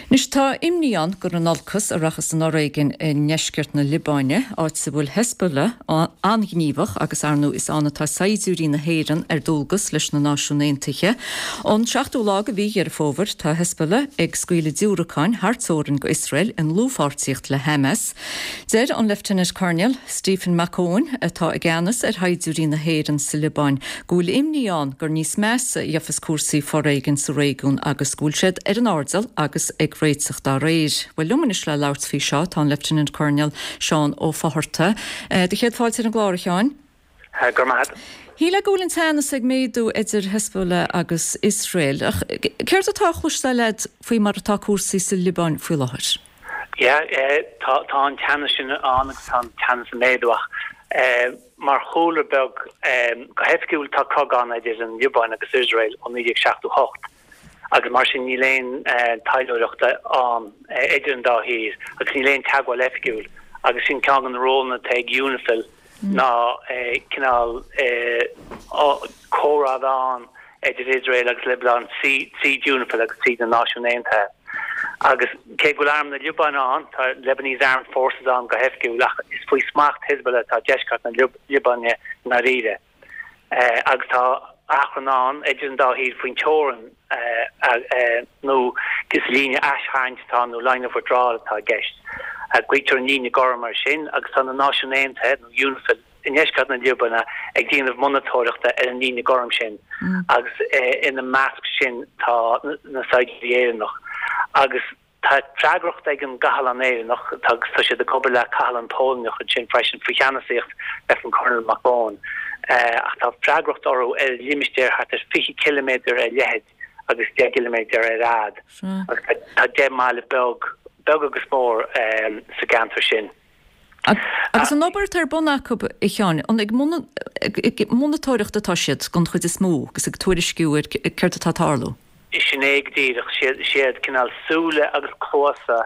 Anois tá imní ann gur in olcas a rachas an fhoréigean i ndeisceart na Liobáine, áit a bhfuil Hezbollah an-ghníomhach agus ar ndóigh is ann atá saighdiúirí na hÉireann ar dualgas leis na Náisiúin Aontaithe. Ón seachtú lá de mhí Dheireadh Fómhair tá Hezbollah ag scaoileadh diúracáin thar teorainn go Iosrael i ndlúthpháirtíocht le Hamas. Deir an Lieutenant Colonel Stephen Mac Eoin, atá i gceannas ar shaighdiúirí na hÉireann sa Liobáin, go bhfuil imní ann gur níos measa a gheofas cúrsaí foréigin sa réigiún agus go bhfuil siad ar an airdeall agus ag réiteach dá réir. Bhuel, liom anois le labhairt faoi seo tá an Lieutenant Colonel Seán Ó Fátharta. Do chéad fáilte ar an gclár, a Sheáin. Go raibh maith agat. Shílfeá go bhfuil an teannas ag méadú idir Hezbollah agus Iosrael, ach céard atá á chloisteáil agat faoi mar atá cúrsaí sa Liobáin faoi láthair? Yeah, tá tá an teannas sin ann agus tá an teannas ag méadú ach mar chúlra beag, go hoifigiúil tá cogadh ann idir an Liobáin agus Iosrael ó 1978 agus mar sin níl aon taidhleoireacht ann idir an dá thír agus níl aon teagmháil oifigiúil agus sin ceann de na rólanna atá ag UNIFIL ná cineál comhrá a bheith ann idir Iosrael agus Liobáin tríd UNIFIL agus tríd na Náisiúin Aontaithe. Agus cé go bhfuil arm na Liobáine ann, tá Lebanese Armed Forces ann go hoifigiúil, ach is faoi smacht Hezbollah atá deisceart na Liobáine i ndáiríre. Agus tá achrann ann idir an dá thír faoin teorainn nó is líne aistharraingt atá ann nó line of withdrawal atá i gceist. Glaoitear an líne gorm air sin agus tá na Náisiúin Aontaithe nó UNIFIL i ndeisceart na Liobáine ag déanamh monatóireachta ar an líne gorm sin agus ina measc sin tá na saighdiúirí Éireannach agus tá freagracht ag an gcathlán Éireannach agus tá siad ag obair le cathlán Polainneach ansin freisin faoi cheannasaíocht Lieutenant Colonel Mac Eoin ach tá freagracht orthu ar limistéar thart ar 20 ciliméadar ar leithead agus 10 gciliméadar ar fhad agus tá 10 mbaile beag, beag agus mór sa gceantar sin. Agus an obair atá ar bun acu, a Sheáin, an ag monatóireacht atá siad den chuid is mó agus ag tuairisciú ar céard atá ag tarlú? Sin é go díreach. Siad cineál súile agus cluasa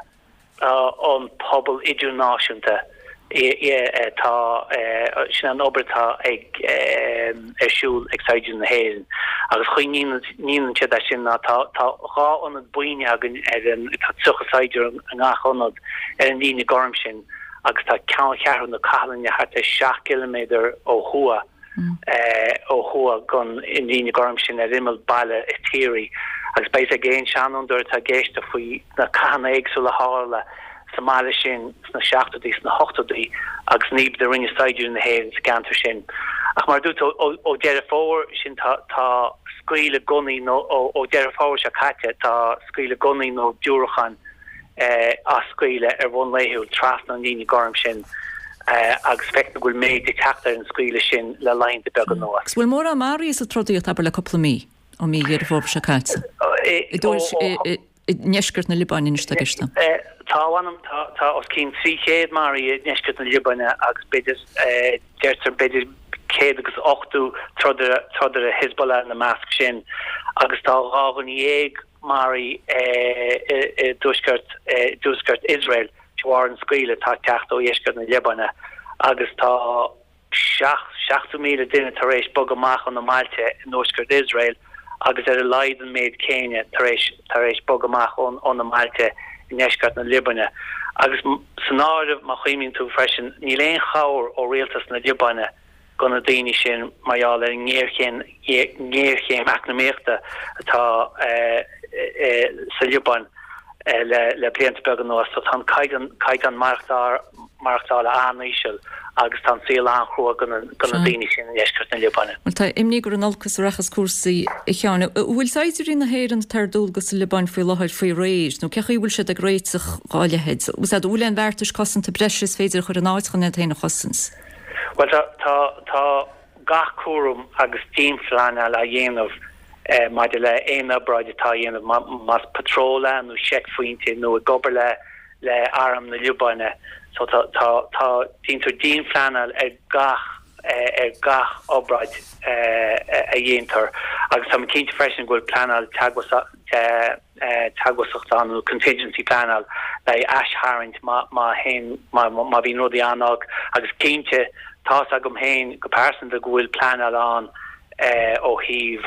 an pobal idirnáisiúnta atá, sin an obair atá ag ar siúl ag saighdiúirí na hÉireann. Agus chaoi a ndéanann siad é sin ná tá 2 ionad buíne againn ar an, tá 30 saighdiúir i ngach ionad, ar an líne gorm sin agus tá ceanncheathrú na cathlainne thart ar 7 gciliméadar ó thuaidh ó thuaidh den líne gorm sin ar imeall baile Tiari agus beidh ag aon seanfhondúir atá ag éisteacht faoi na cathanna éagsúla a tharla sa mbaile sin sna seachtóidí, sna hochtóidí agus an obair a rinne saighdiúirí na hÉireann sa gceantar sin. Ach mar a dúirt tú, ó Deireadh Fómhair sin tá tá scaoileadh gunnaí nó ó Deireadh Fómhair seo caite tá scaoileadh gunnaí nó diúracáin á scaoileadh ar bhonn laethúil trasna an líne gorm sin agus feictear go bhfuil méid ag teacht ar an scaoileadh sin le laethanta beaga anuas. Agus bhfuil mórán maraithe sa trodaíocht, abair, le cúpla mí, ó mhí Dheireadh Fómhair seo caite? I ndeisceart na Liobáine anois atá i gceist. Tá, a mh'anam, tá os cionn 300 maraithe i ndeisceart na Liobáine agus b'fhéidir, deirtear, b'fhéidir 180 trodaire, trodaire Hezbollah ina measc sin agus tá 12 dhuine maraithe i dtuaisceart, i dtuaisceart Iosrael de bharr an scaoileadh atá ag teacht ó dheisceart na Liobáine agus tá 70,000 duine tar éis bogadh amach óna mbailte i dtuaisceart Iosrael agus ar a laghad an méid céanna tar éis tar éis bogadh amach óna mbailte i ndeisceart na Liobáine. Agus san áireamh, má chuimhníonn tú freisin, níl aon chabhair ó rialtas na Liobáine do na daoine sin mar gheall ar an ngéarchéim ngéarchéim eacnamaíochta atá sa Liobáin le blianta beaga anuas. So tá an caighdeán caighdeán maireachtála an-íseal agus tá an saol an-chrua do na daoine sin i ndeisceart na Liobáine. Bhuel, tá imní gur in olcas a rachas cúrsaí, a Sheáin. An bhfuil saighdiúirí na hÉireann atá ar dualgas sa Liobáin faoi láthair faoi réir, nó cé chaoi a bhfuil siad ag réiteach dhá leithéid? An bhfuil aon bheartais cosanta breise is féidir a chur in áit chun iad féin a chosaint? Bhuel, tá, tá, tá gach cúram agus dianphleanáil á dhéanamh maidir le aon obráid atá á dhéanamh, más patról é nó seicphointe nó ag obair le le arm na Liobáine. So tá, tá, tá, déantar dianphleanáil ar gach, ar gach obráid a dhéantar agus tá mé cinnte freisin go bhfuil pleanáil teagmhasachta ann nó contingency pleanáil le haghaidh aistharraingt má, má théann, má, má bhíonn rudaí an-olc agus cinnte tá's agam féin go pearsanta go bhfuil pleanáil ann ó thaobh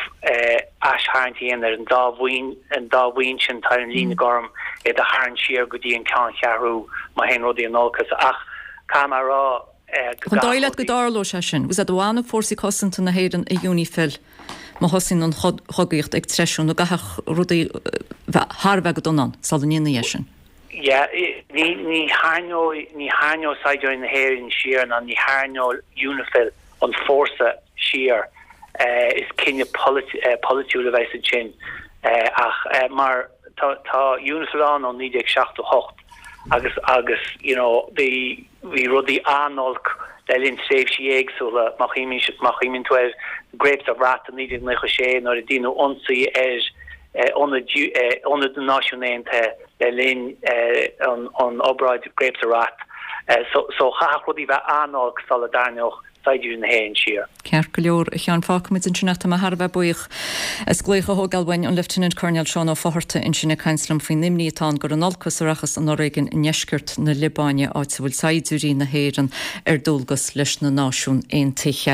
aistharraingt a dhéanamh ar an dá bhuíon, an dá bhuíon sin atá ar an líne gorm. iad a tharraingt siar go dtí an ceanncheathrú má théann rudaí in olcas. Ach caithfidh mé a rá go An dóigh leat go dtarlóidh sé sin? Bhfuil a fhios agat an bhfanfaidh fórsaí cosanta na hÉireann i UNIFIL má thosaíonn an chogaíocht ag treisiú nó an gcaithfeadh rudaí bheith thar a bheith go dona ann sula ndéanfaí é sin? Yeah, ní ní tharraingeoidh ní tharraingeoidh saighdiúirí na hÉireann siar ná ní tharraingeoidh UNIFIL an fórsa siar. Is cinneadh polaitiúil a bheas ansin ach mar tá tá UNIFIL ann ó 1978 agus agus you know bhí bhí rudaí an-olc le linn tréimhsí éagsúla má chuimhníonn tú ar Grapes of Wrath i 1996 nuair a déanadh ionsaí ar ionad ionad na Náisiún Aontaithe le linn an obráid Grapes of Wrath. So so chaithfeadh rudaí bheith an-olc sula dtarraingeodh saighdiúirí na hÉireann siar. Ceart go leor, a Sheáin, fágfaimid ansin é. Tá mé thar a bheith buíoch as glaoch a thógáil uainn, an Lieutenant Colonel Seán Ó Fátharta ansin ag caint liom faoin imní atá ann gur in olcas a rachas an fhoréigean i ndeisceart na Liobáine, áit a bhfuil saighdiúirí na hÉireann ar dualgas leis na Náisiún Aontaithe.